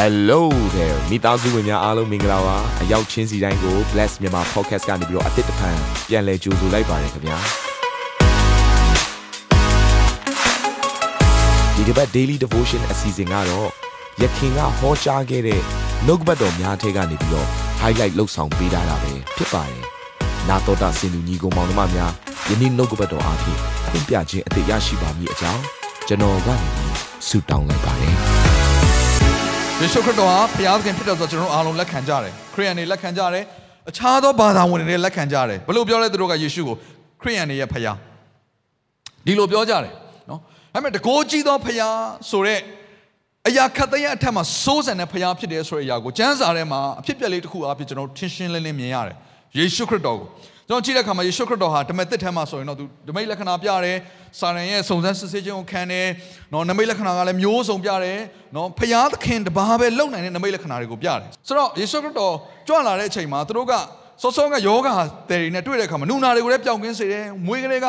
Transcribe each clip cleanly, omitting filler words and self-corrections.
Hello there မိသားစုဝင်များအားလုံးမင်္ဂလာပါအရောက်ချင်းစီတိုင်းကို Bless မြန်မာ Podcast ကနေပြီးတော့အသစ်တစ်ဖန်ပြန်လည်ကြိုဆိုလိုက်ပါတယ်ခင်ဗျာဒီတစ်ပတ် Daily Devotion အစီအစဉ်ကတော့ယခင်ကဟောကြားခဲ့တဲ့နှုတ်ကပတ်တော်များထဲကနေပြီးတော့ highlight လုပ်ဆောင်ပေးထားတာပဲဖြစ်ပါတယ်နာတော်တာစင်သူညီကောင်မောင်နှမများယနေ့နှုတ်ကပတ်တော်အားဖြင့်အပြခြင်းအသေးရရှိပါမည်အကြောင်းကျွန်တော်ကနေဆုတောင်းလိုက်ပါတယ်ယေရှုခရစ်တော်ဟာဘုရားသခင်ဖြစ်တယ်ဆိုတော့ကျွန်တော်အားလုံးလက်ခံကြတယ်ခရစ်ယာန်တွေလက်ခံကြတယ်အခြားသောဘာသာဝင်တွေလက်ခံကြတယ်ဘယ်လိုပြောလဲသူတို့ကယေရှုကိုခရစ်ယာန်တွေရဲ့ဘုရားဒီလိုပြောကြတယ်နော်ဒါပေမဲ့တကိုးကြီးသောဘုရားဆိုတဲ့အရာခတ်သိမ်းအထက်မှာစိုးစံတဲ့ဘုရားဖြစ်တယ်ဆိုတဲ့အရာကိုကျမ်းစာထဲမှာအဖြစ်ပြက်လေးတစ်ခုအားဖြင့်ကျွန်တော်ထင်ရှင်းလင်းလင်းမြင်ရတယ်ယေရှုခရစ်တော်ကိုကျွန်တော်ကြည့်တဲ့အခါမှာယေရှုခရစ်တော်ဟာဓမ္မသစ်ထဲမှာဆိုရင်တော့သူဓမ္မလက္ခဏာပြတယ်စာရန်ရဲ့စုံစမ်းစစ်ဆေးခြင်းကိုခံတယ်နော်နမိတ်လက္ခဏာကလည်းမျိုးစုံပြတယ်နော်ဖျားသခင်တပါးပဲလုံနိုင်တဲ့နမိတ်လက္ခဏာတွေကိုပြတယ်ဆိုတော့ယေရှုခရစ်တော်ကြွလာတဲ့အချိန်မှာသူတို့ကစောစောကယောဂါတယ်တွေနဲ့တွေ့တဲ့အခါမှာနူနာတွေကိုလည်းပျောက်ကင်းစေတယ်မွေးကလေး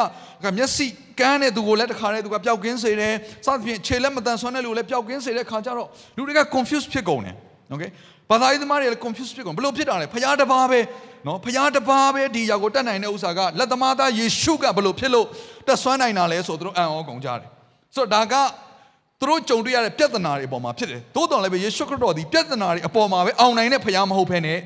ကမျက်စိကန်းတဲ့သူကိုလည်းတခါတည်းသူကပျောက်ကင်းစေတယ်စသဖြင့်ခြေလက်မတန်ဆွမ်းတဲ့လူကိုလည်းပျောက်ကင်းစေတဲ့အခါကျတော့လူတွေက confuse ဖြစ်ကုန်တယ်โอเคဘာသာရေးသမားတွေလည်း confuse ဖြစ်ကုန်ဘယ်လိုဖြစ်တာလဲဖျားတပါးပဲနော်ဖျားတပါးပဲဒီຢာကိုတတ်နိုင်တဲ့ဥစ္စာကလက်သမားသားယေရှုကဘယ်လိုဖြစ်လို့တက်ဆွမ်းနိုင်တာလဲဆိုသူတို့အံ့ဩကုန်ကြတယ်ဆိုတော့ဒါကသူတို့ကြုံတွေ့ရတဲ့ပြဿနာတွေအပေါ်မှာဖြစ်တယ်သို့တော်လည်းပဲယေရှုခရစ်တော်ဒီပြဿနာတွေအပေါ်မှာပဲအောင်နိုင်တဲ့ဖျားမဟုတ်ဘဲနဲ့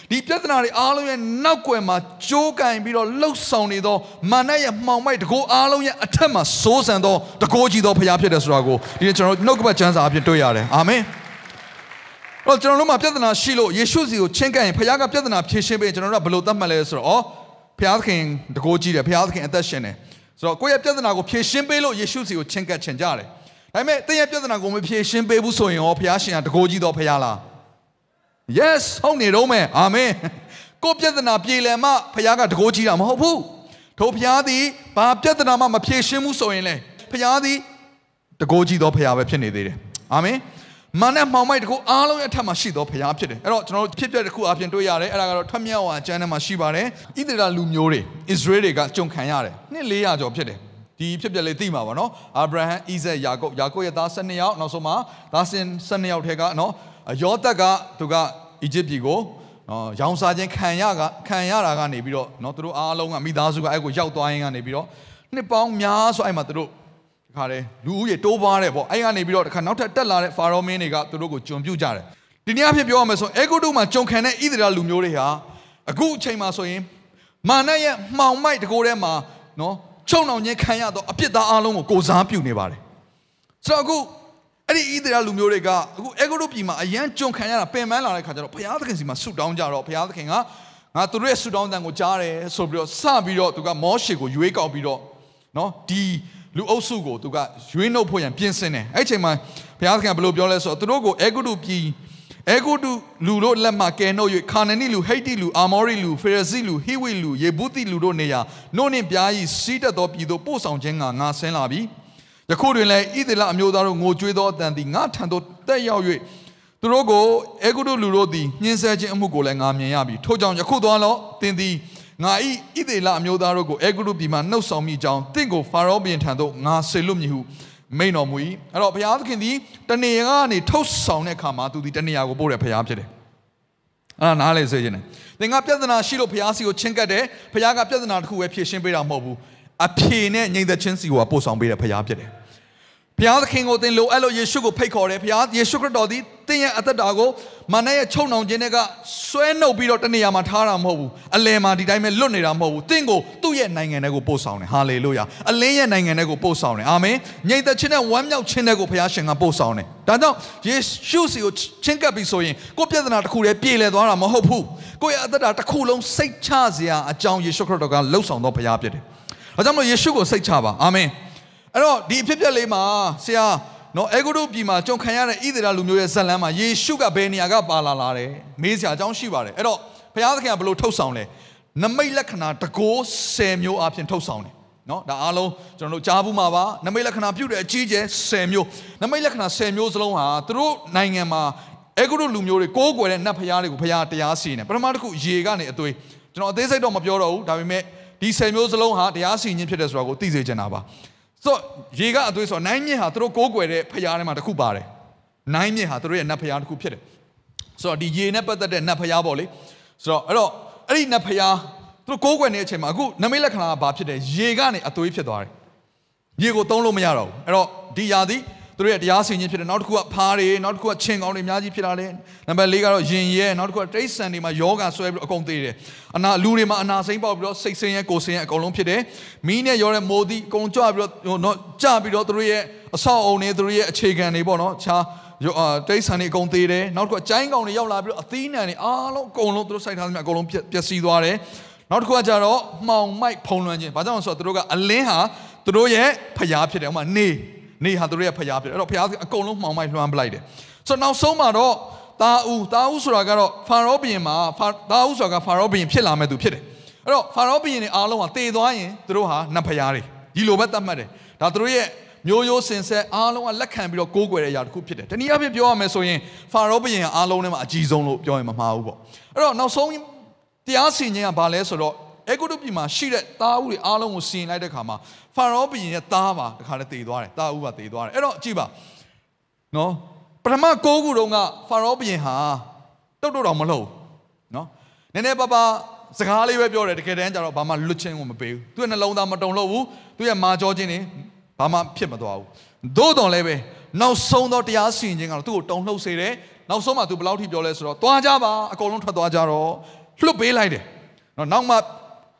ဒီပြဿနာတွေအားလုံးရဲ့နောက်ွယ်မှာကြိုးကင်ပြီးတော့လှုပ်ဆောင်နေသောမာနရဲ့မှောင်မိုက်တကိုးအားလုံးရဲ့အထက်မှာစိုးစံသောတကိုးကြီးသောဖျားဖြစ်တယ်ဆိုတာကိုဒီနေ့ကျွန်တော်နှုတ်ကပတ်ကျမ်းစာအဖြစ်တွေ့ရတယ်အာမင်တော့ကျွန်တော်တို့မှာပြဿနာရှိလို့ယေရှုစီကိုချင်းကပ်ရင်ဘုရားကပြဿနာဖြေရှင်းပေးရင်ကျွန်တော်တို့ကဘယ်လိုသတ်မှတ်လဲဆိုတော့ဘုရားသခင်တကိုးကြီးတယ်ဘုရားသခင်အသက်ရှင်တယ်ဆိုတော့ကိုယ့်ရဲ့ပြဿနာကိုဖြေရှင်းပေးလို့ယေရှုစီကိုချင်းကပ်ချင်ကြတယ်ဒါပေမဲ့တင်းရဲ့ပြဿနာကိုမဖြေရှင်းပေးဘူးဆိုရင်ရောဘုရားရှင်ကတကိုးကြီးတော့ဘုရားလား Yes ဟုတ်နေတော့မယ်အာမင်ကိုယ့်ပြဿနာပြေလည်မှဘုရားကတကိုးကြီးတာမဟုတ်ဘူးထို့ဘုရားသည်ဘာပြဿနာမှမဖြေရှင်းဘူးဆိုရင်လေဘုရားသည်တကိုးကြီးတော့ဘုရားပဲဖြစ်နေသေးတယ်အာမင်မာနမှောင်မိုက်တကူအားလုံးရဲ့အထက်မှာရှိသောဘုရားဖြစ်တယ်အဲ့တော့ကျွန်တော်တို့ဖြစ်ပြတဲ့တစ်ခုအပြင်တွေ့ရတယ်အဲ့ဒါကတော့ထွတ်မြောက်ဝါကျမ်းထဲမှာရှိပါတယ်ဣသရေလလူမျိုးတွေဣသရေလတွေကကြုံခံရတယ်နှစ်400ကျော်ဖြစ်တယ်ဒီဖြစ်ပြလေးသိမှာပါနော်အာဗြဟံဣဇက်ယာကုပ်ရဲ့သား12ယောက်နောက်ဆုံးမှာသားစဉ်12ယောက်ထဲကနော်ယောသက်ကသူကအီဂျစ်ပြည်ကိုရောင်စားခြင်းခံရတာကနေပြီးတော့နော်သူတို့အားလုံးကမိသားစုကအဲ့ကိုရောက်သွားရင်ကနေပြီးတော့နှစ်ပေါင်းများစွာအဲ့မှာသူတို့ခါတယ်လူဦးရေတိုးပွားတယ်ပေါ့အဲ့ကနေပြီးတော့တခါနောက်ထပ်တက်လာတဲ့ဖာရောမင်းတွေကသူတို့ကိုကျွန်ပြုကြတယ်ဒီနေ့အဖြစ်ပြောရမယ်ဆိုအေဂုတုမှာကြုံခံတဲ့ဣသရေလလူမျိုးတွေဟာအခုအချိန်မှာဆိုရင်မာနရဲ့မှောင်မိုက်တကိုယ်ထဲမှာနော်ချုံနှောင်ခြင်းခံရတော့အပြစ်သားအလုံးကိုကိုစားပြုနေပါတယ်ဆိုတော့အခုအဲ့ဒီဣသရေလလူမျိုးတွေကအခုအေဂုတုပြည်မှာအရန်ကြုံခံရတာပင်ပန်းလာတဲ့ခါကျတော့ဘုရားသခင်စီမှာဆုတောင်းကြတော့ဘုရားသခင်ကငါသူတို့ရဲ့ဆုတောင်းတန်ကိုကြားတယ်ဆိုပြီးတော့စပြီးတော့သူကမောရှေကိုရွေးကောက်ပြီးတော့နော်ဒီလူအုပ်စုကိုသူကရွေးနှုတ်ဖို့ရန်ပြင်ဆင်တယ်အဲ့ချိန်မှာဘုရားသခင်ဘယ်လိုပြောလဲဆိုတော့သူတို့ကိုအေဂုတုပြည်အေဂုတုလူတို့လက်မှကယ်နှုတ်၍ခါနနီလူဟိတ္တိလူအာမောရိလူဖေရဇိလူဟိဝိလူယေဗုသိလူတို့နေရာနှုတ်နှင့်ပြားဤစီးတက်သောပြည်သို့ပို့ဆောင်ခြင်းကငါဆင်းလာပြီယခုတွင်လည်းဣသရေလအမျိုးသားတို့ငိုကြွေးသောအတန်သည်ငါထံသို့တက်ရောက်၍သူတို့ကိုအေဂုတုလူတို့သည်ညှင်းဆဲခြင်းအမှုကိုလည်းငါမြင်ရပြီထို့ကြောင့်ယခုသွားလောသင်သည်ငါဤဣသရေလအမျိုးသားတို့ကိုအေဂုတုပြည်မှနှုတ်ဆောင်မိကြောင်းတင့်ကိုဖာရောဘုရင်ထံသို့ငါဆေလွတ်မည်ဟုမိန့်တော်မူ၏အဲ့တော့ဘုရားသခင်သည်တနေရာကနေထုတ်ဆောင်တဲ့အခါမှာသူဒီတနေရာကိုပို့တဲ့ဘုရားဖြစ်တယ်အဲ့ဒါနားလေစေခြင်းတယ်သင်ကပြဿနာရှိလို့ဘုရားစီကိုချင်းကပ်တယ်ဘုရားကပြဿနာတစ်ခုပဲဖြေရှင်းပေးတာမဟုတ်ဘူးအဖြေနဲ့ငြိမ်သက်ခြင်းစီကိုပို့ဆောင်ပေးတဲ့ဘုရားဖြစ်တယ်ဘုရားသခင်ကိုသင်လိုအဲ့လိုယေရှုကိုဖိတ်ခေါ်တယ်ဘုရားယေရှုခရစ်တော်သည်သင်ရဲ့အသက်တာကိုမာနရဲ့ချုံနှောင်ခြင်းတွေကဆွဲနှုတ်ပြီးတော့တနေရာမှာထားတာမဟုတ်ဘူးအလယ်မှာဒီတိုင်းပဲလွတ်နေတာမဟုတ်ဘူးသင်ကိုသူ့ရဲ့နိုင်ငံထဲကိုပို့ဆောင်တယ်ဟာလေလုယာအလင်းရဲ့နိုင်ငံထဲကိုပို့ဆောင်တယ်အာမင်ငြိမ်သက်ခြင်းနဲ့ဝမ်းမြောက်ခြင်းတွေကိုဘုရားရှင်ကပို့ဆောင်တယ်ဒါကြောင့်ယေရှုစီကိုချင်းကပ်ပြီးဆိုရင်ကိုယ့်ပြဿနာတစ်ခုတည်းပြေလည်သွားတာမဟုတ်ဘူးကိုယ့်ရဲ့အသက်တာတစ်ခုလုံးစိတ်ချစရာအကြောင်းယေရှုခရစ်တော်ကလှုပ်ဆောင်သောဘုရားဖြစ်တယ်ဒါကြောင့်မို့ယေရှုကိုစိတ်ချပါအာမင်အဲ့တော့ဒီအဖြစ်ပြက်လေးမှာဆရာနော်အေဂုတုပြည်မှာကြုံခံရတဲ့ဣသရေလလူမျိုးရဲ့ဇာတ်လမ်းမှာယေရှုကဘယ်နေရာကပါလာတယ်မေးစရာအကြောင်းရှိပါတယ်အဲ့တော့ဘုရားသခင်ကဘယ်လိုထုတ်ဆောင်လဲနမိတ်လက္ခဏာတကိုး10မျိုးအပြင်ထုတ်ဆောင်တယ်နော်ဒါအားလုံးကျွန်တော်တို့ကြားဘူးမှာပါနမိတ်လက္ခဏာပြုတဲ့အကြီးကျယ်10မျိုးနမိတ်လက္ခဏာ10မျိုးစလုံးဟာသူတို့နိုင်ငံမှာအေဂုတုလူမျိုးတွေကိုးကွယ်တဲ့နတ်ဘုရားတွေကိုဘုရားတရားစီရင်တယ်ပထမတစ်ခုရေကနေအသွေးကျွန်တော်အသေးစိတ်တော့မပြောတော့ဘူးဒါပေမဲ့ဒီ10မျိုးစလုံးဟာတရားစီရင်ခြင်းဖြစ်တယ်ဆိုတာကိုသိစေချင်တာပါဆိုရေကအသွေးဆိုနိုင်မြင့်ဟာသူတို့ကိုးကွယ်တဲ့ဖျားထဲမှာတစ်ခုပါတယ် နိုင်မြစ်ဟာသူတို့ရဲ့နတ်ဖျားတစ်ခုဖြစ်တယ်ဆိုတော့ဒီရေနဲ့ပတ်သက်တဲ့နတ်ဖျားပေါ့လေဆိုတော့အဲ့ဒီနတ်ဖျားသူတို့ကိုးကွယ်နေတဲ့အချိန်မှာအခုနမိတ်လက္ခဏာကဘာဖြစ်တယ်ရေကနေအသွေးဖြစ်သွားတယ်ရေကိုသုံးလို့မရတော့ဘူးအဲ့တော့ဒီຢာသည်သူတို့ရဲ့တရားစီရင်ဖြစ်တယ်နောက်တစ်ခုကဖားတွေနောက်တစ်ခုကချင်းကောင်းတွေအများကြီးဖြစ်လာတယ်နံပါတ် 4ကတော့ရင်ရဲနောက်တစ်ခုကတိရစ္ဆာန်တွေမှာယောဂဆွဲပြီးအကုန်သေးတယ်လူတွေမှာအနာစိမ့်ပေါက်ပြီးတော့စိတ်ဆင်းရဲကိုယ်ဆင်းရဲအကုန်လုံးဖြစ်တယ်မီးနဲ့ရောတဲ့မိုးသည်အကုန်ကြွပြီးတော့ကြပြီးတော့သူတို့ရဲ့အဆောက်အုံတွေသူတို့ရဲ့အခြေခံတွေပေါ့နော်ခြားတိရစ္ဆာန်တွေအကုန်သေးတယ်နောက်တစ်ခုကကျိုင်းကောင်တွေရောက်လာပြီးတော့အသီးနှံတွေအားလုံးအကုန်လုံးသူတို့စိုက်ထားသမျှအကုန်လုံးပျက်စီးသွားတယ်နောက်တစ်ခုကကြတော့မှောင်မိုက်ဖုံးလွှမ်းခြင်းဘာကြောင့်လဲဆိုတော့သူတို့ကအလင်းဟာသူတို့ရဲ့ဖျားဖြစ်တယ်ဥပမာနေဟာသူတို့ရဲ့ဖျားဖြစ်တယ်အဲ့တော့ဖျားအကုန်လုံးမှောင်မိုက်လွှမ်းပလိုက်တယ်ဆိုတော့နောက်ဆုံးမှာတော့တာဦးဆိုတာကတော့ဖာရောဘုရင်မှာတာဦးဆိုတာကဖာရောဘုရင်ဖြစ်လာမဲ့သူဖြစ်တယ်အဲ့တော့ဖာရောဘုရင်တွေအားလုံးဟာတည်သွားရင်သူတို့ဟာနတ်ဖျားတွေဒီလိုပဲသတ်မှတ်တယ်ဒါသူတို့ရဲ့မျိုးရိုးစင်ဆက်အားလုံးကလက်ခံပြီးတော့ကိုးကွယ်တဲ့အရာတစ်ခုဖြစ်တယ်တနည်းအားဖြင့်ပြောရမယ်ဆိုရင်ဖာရောဘုရင်အားလုံးထဲမှာအကြီးဆုံးလို့ပြောရင်မမှားဘူးပေါ့အဲ့တော့နောက်ဆုံးတရားစီရင်ခြင်းကဘာလဲဆိုတော့အေဂုတုပြည်မှာရှိတဲ့သားဦးတွေအားလုံးကိုစီရင်လိုက်တဲ့ခါမှာဖာရောဘုရင်ရဲ့သားပါတခါတည်းတည်သွားတယ်သားဦးပါတည်သွားတယ်အဲ့တော့ကြည့်ပါနော်ပထမ9ခုတုန်းကဖာရောဘုရင်ဟာတုတ်တော်မလှုပ်နော်နည်းနည်းပါးစကားလေးပဲပြောတယ်တကယ်တမ်းကျတော့ဘာမှလွတ်ချင်းကိုမပေးဘူးသူ့ရဲ့နှလုံးသားမတုန်လှုပ်ဘူးသူ့ရဲ့မာကြောခြင်းတွေဘာမှဖြစ်မသွားဘူးသို့တော်လည်းပဲနောက်ဆုံးတော့တရားစီရင်ခြင်းကတော့သူ့ကိုတုန်လှုပ်စေတယ်နောက်ဆုံးမှသူဘယ်လောက်ထိပြောလဲဆိုတော့သွားကြပါအကုန်လုံးထွက်သွားကြတော့လွတ်ပေးလိုက်တယ်နော်နောက်မ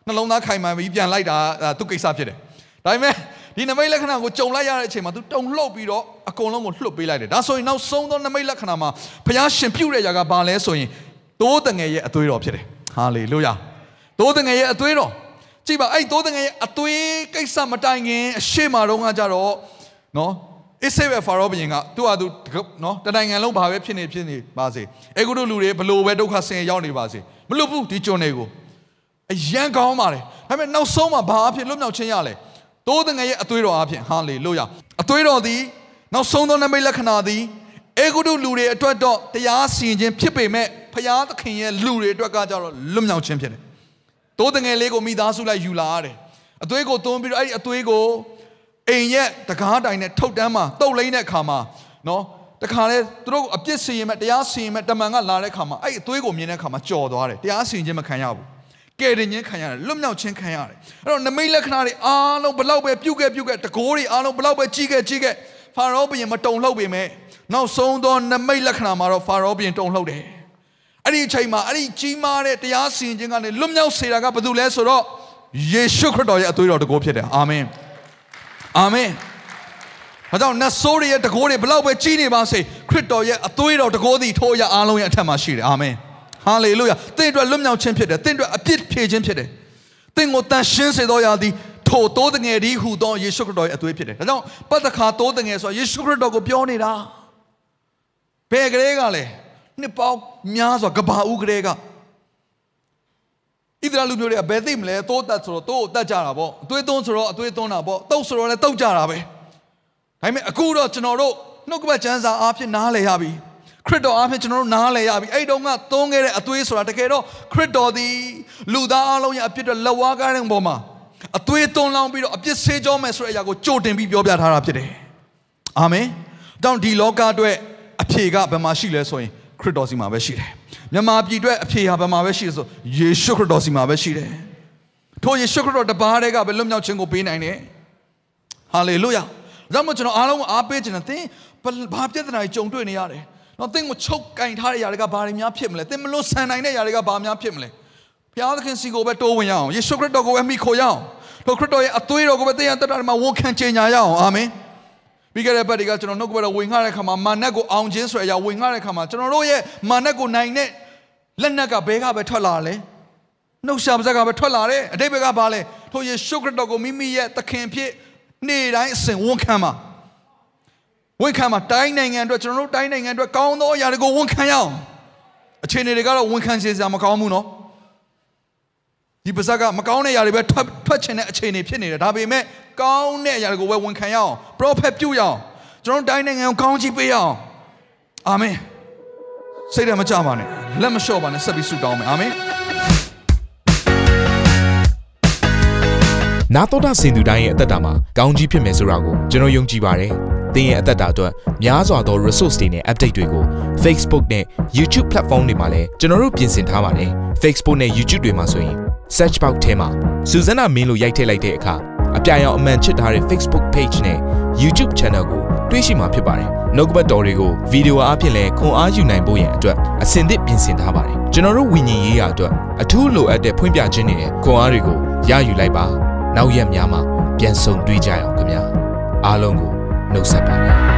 ှနှလုံးသားခိုင်မာပြီးပြန်လိုက်တာသူ့ကိစ္စဖြစ်တယ်ဒါပေမဲ့ဒီနမိတ်လက္ခဏာကိုကြုံလိုက်ရတဲ့အချိန်မှာသူတုန်လှုပ်ပြီးတော့အကုန်လုံးကိုလွတ်ပေးလိုက်တယ်ဒါဆိုရင်နောက်ဆုံးသောနမိတ်လက္ခဏာမှာဘုရားရှင်ပြုတဲ့ຢာကဘာလဲဆိုရင်သိုးတငယ်ရဲ့အသွေးတော်ဖြစ်တယ်ဟာလေလုယာသိုးတငယ်ရဲ့အသွေးတော်ကြည့်ပါအဲ့သိုးတငယ်ရဲ့အသွေးကိစ္စမတိုင်ခင်အရှိမတော်ကကြတော့နော်အစ္စရေးဖာရောဘုရင်ကသူ့ဟာသူနော်တနိုင်ငံလုံးဘာပဲဖြစ်နေပါစေအေဂုတုလူတွေဘလို့ပဲဒုက္ခဆင်းရဲရောက်နေပါစေမလွတ်ဘူးဒီကျွန်တွေကိုအယံကောင်းပါတယ်ဒါပေမဲ့နောက်ဆုံးမှာဘာအဖြစ်လွတ်မြောက်ခြင်းရလဲသိုးတငယ်ရဲ့အသွေးတော်အဖြစ်ဟာလေလုယာအသွေးတော်သည်နောက်ဆုံးသောနမိတ်လက္ခဏာသည်အေဂုတုလူတွေအတွက်တော့တရားစီရင်ခြင်းဖြစ်ပေမဲ့ဖျားသခင်ရဲ့လူတွေအတွက်ကကြတော့လွတ်မြောက်ခြင်းဖြစ်တယ်သိုးတငယ်လေးကိုမိသားစုလိုက်ယူလာရတယ်အသွေးကိုသွန်းပြီးတော့အဲ့ဒီအသွေးကိုအိမ်ရဲ့တကားတိုင်နဲ့ထုတ်တန်းမှာတုတ်လိမ့်တဲ့အခါမှာနော်တခါလေသူတို့အပြစ်စီရင်မဲ့တရားစီရင်မဲ့တမန်ကလာတဲ့အခါမှာအဲ့ဒီအသွေးကိုမြင်တဲ့အခါမှာကြော်သွားတယ်တရားစီရင်ခြင်းမခံရဘူးကဲတင်ခြင်းခံရတယ်လွတ်မြောက်ခြင်းခံရတယ်အဲ့တော့နမိတ်လက္ခဏာတွေအားလုံးဘလောက်ပဲပြုတ်ခဲ့တကိုးတွေအားလုံးဘလောက်ပဲကြီးခဲ့ဖာရောဘုရင်မတုန်လှုပ်ပေမဲ့နောက်ဆုံးသောနမိတ်လက္ခဏာမှာတော့ဖာရောဘုရင်တုန်လှုပ်တယ်အဲ့ဒီအချိန်မှာအဲ့ဒီကြီးမားတဲ့တရားစီရင်ခြင်းကနေလွတ်မြောက်စေတာကဘာလို့လဲဆိုတော့ယေရှုခရစ်တော်ရဲ့အသွေးတော်တကိုးဖြစ်တယ်အာမင်အာမင်ဒါကြောင့်နတ်ဆိုးတွေရဲ့တကိုးတွေဘလောက်ပဲကြီးနေပါစေခရစ်တော်ရဲ့အသွေးတော်တကိုးသည်ထိုအရာအားလုံးရဲ့အထက်မှာရှိတယ်အာမင်ဟာလေလုယာသင်အတွက်လွတ်မြောက်ခြင်းဖြစ်တယ်သင်အတွက်အပြစ်ဖြေခြင်းဖြစ်တယ်သင်ကိုတန်ရှင်းစေသောရာသည်ထိုသိုးတငယ်ဒီဟူသောယေရှုခရစ်တော်ရဲ့အသွေးဖြစ်တယ်ဒါကြောင့်ပတ္တခါသိုးတငယ်ဆိုယေရှုခရစ်တော်ကိုပြောနေတာဘယ်ကလေးကလဲနှစ်ပေါင်းများစွာကဘာဦးကလေးကဣသရေလလူမျိုးတွေကဘယ်သိမလဲသိုးတက်ဆိုတော့သိုးကိုတက်ကြတာပေါ့အသွေးသွန်းဆိုတော့အသွေးသွန်းတာပေါ့တုတ်ဆိုတော့လည်းတုတ်ကြတာပဲဒါပေမဲ့အခုတော့ကျွန်တော်တို့နှုတ်ကပတ်ကျမ်းစာအားဖြင့်နားလည်ရပြီခရစ်တော်အားဖြင့်ကျွန်တော်တို့နားလည်ရပြီအဲ့တုန်းကသုံးခဲ့တဲ့အသွေးဆိုတာတကယ်တော့ခရစ်တော်သည်လူသားအလုံးရဲ့အပြစ်တွေလက်ဝါးကားတဲ့ပုံမှာအသွေးသွန်းလောင်းပြီးတော့အပြစ်ဆေးကြောမယ်ဆိုတဲ့အရာကိုကြိုတင်ပြီးပြောပြထားတာဖြစ်တယ်အာမင်တောင်းဒီလောကအတွက်အဖြေကဘယ်မှာရှိလဲဆိုရင်ခရစ်တော်စီမှာပဲရှိတယ်မြန်မာပြည်အတွက်အဖြေဟာဘယ်မှာပဲရှိလဲဆိုယေရှုခရစ်တော်စီမှာပဲရှိတယ်ထိုယေရှုခရစ်တော်တပါးတည်းကပဲလွတ်မြောက်ခြင်းကိုပေးနိုင်တယ်ဟာလေလုယာဒါမှမဟုတ်ကျွန်တော်အားလုံးအားပေးခြင်းနဲ့သင်ဘာပြဿနာတွေကြုံတွေ့နေရတယ်နော်သင်ကိုချုပ်ကင်ထားတဲ့ຢာတွေကဘာတွေများဖြစ်မလဲသင်မလို့ဆန်နိုင်တဲ့ຢာတွေကဘာများဖြစ်မလဲဘုရားသခင်စီကိုပဲတိုးဝင်ရအောင်ယေရှုခရစ်တော်ကိုပဲမိခိုရအောင်ထိုခရစ်တော်ရဲ့အသွေးတော်ကိုပဲသင်ရတတ်တာမှာဝန်ခံကြေညာရအောင်အာမင်ပြီးခဲ့တဲ့ဘက်တွေကကျွန်တော်နှုတ်ကပတ်တော်ဝင်ငှတဲ့ခါမှာမာနက်ကိုအောင်ခြင်းဆိုတဲ့အရာဝင်ငှတဲ့ခါမှာကျွန်တော်တို့ရဲ့မာနက်ကိုနိုင်တဲ့လက်နက်ကဘဲကပဲထွက်လာလဲနှုတ်ရှာပါးစကပဲထွက်လာတယ်အတိတ်ဘက်ကဘာလဲထိုယေရှုခရစ်တော်ကိုမိမိရဲ့သခင်ဖြစ်နေ့တိုင်းအစဉ်ဝန်ခံမှာတိုင်းနိုင်ငံအတွက်ကျွန်တော်တို့တိုင်းနိုင်ငံအတွက်ကောင်းသောအရာတွေကိုဝန်ခံရအောင်အခြေအနေတွေကတော့ဝန်ခံစေစရာမကောင်းဘူးနော်ဒီပါဇက်ကမကောင်းတဲ့အရာတွေပဲထွက်ချင်တဲ့အခြေအနေဖြစ်နေတယ်ဒါပေမဲ့ကောင်းတဲ့အရာတွေကိုပဲဝန်ခံရအောင် prophet ပြုရအောင်ကျွန်တော်တို့တိုင်းနိုင်ငံကိုကောင်းချီးပေးရအောင်အာမင်စိတ်ဓာတ်မကြပါနဲ့လက်မလျှော့ပါနဲ့ဆက်ပြီးဆုတောင်းမယ်အာမင်နာတော်တာစင်သူတိုင်းရဲ့အသက်တာမှာကောင်းကြီးဖြစ်မယ်ဆိုတာကိုကျွန်တော်ယုံကြည်ပါတယ်။ သင်ရဲ့အသက်တာအတွက်များစွာသော resource တွေနဲ့ update တွေကို Facebook နဲ့ YouTube platform တွေမှာလည်းကျွန်တော်တို့ပြင်ဆင်ထားပါတယ် Facebook နဲ့ YouTube တွေမှာဆိုရင် search box ထဲမှာစုစွမ်းနာမင်းလို့ရိုက်ထည့်လိုက်တဲ့အခါအပြအမှန်ချစ်ထားတဲ့ Facebook page နဲ့ YouTube channel ကိုတွေ့ရှိမှာဖြစ်ပါတယ်နှုတ်ကပတ်တော်တွေကိုဗီဒီယိုအားဖြင့်လည်းခွန်အားယူနိုင်ဖို့ရန်အတွက်အစင်သစ်ပြင်ဆင်ထားပါတယ်ကျွန်တော်တို့ဝိညာဉ်ရေးရာအတွက်အထူးလိုအပ်တဲ့ဖွင့်ပြခြင်းတွေနဲ့ခွန်အားတွေကိုရယူလိုက်ပါနောက်ရက်များမှာပြန်ဆုံတွေ့ကြရအောင်ခင်ဗျာအားလုံးကိုနှုတ်ဆက်ပါတယ်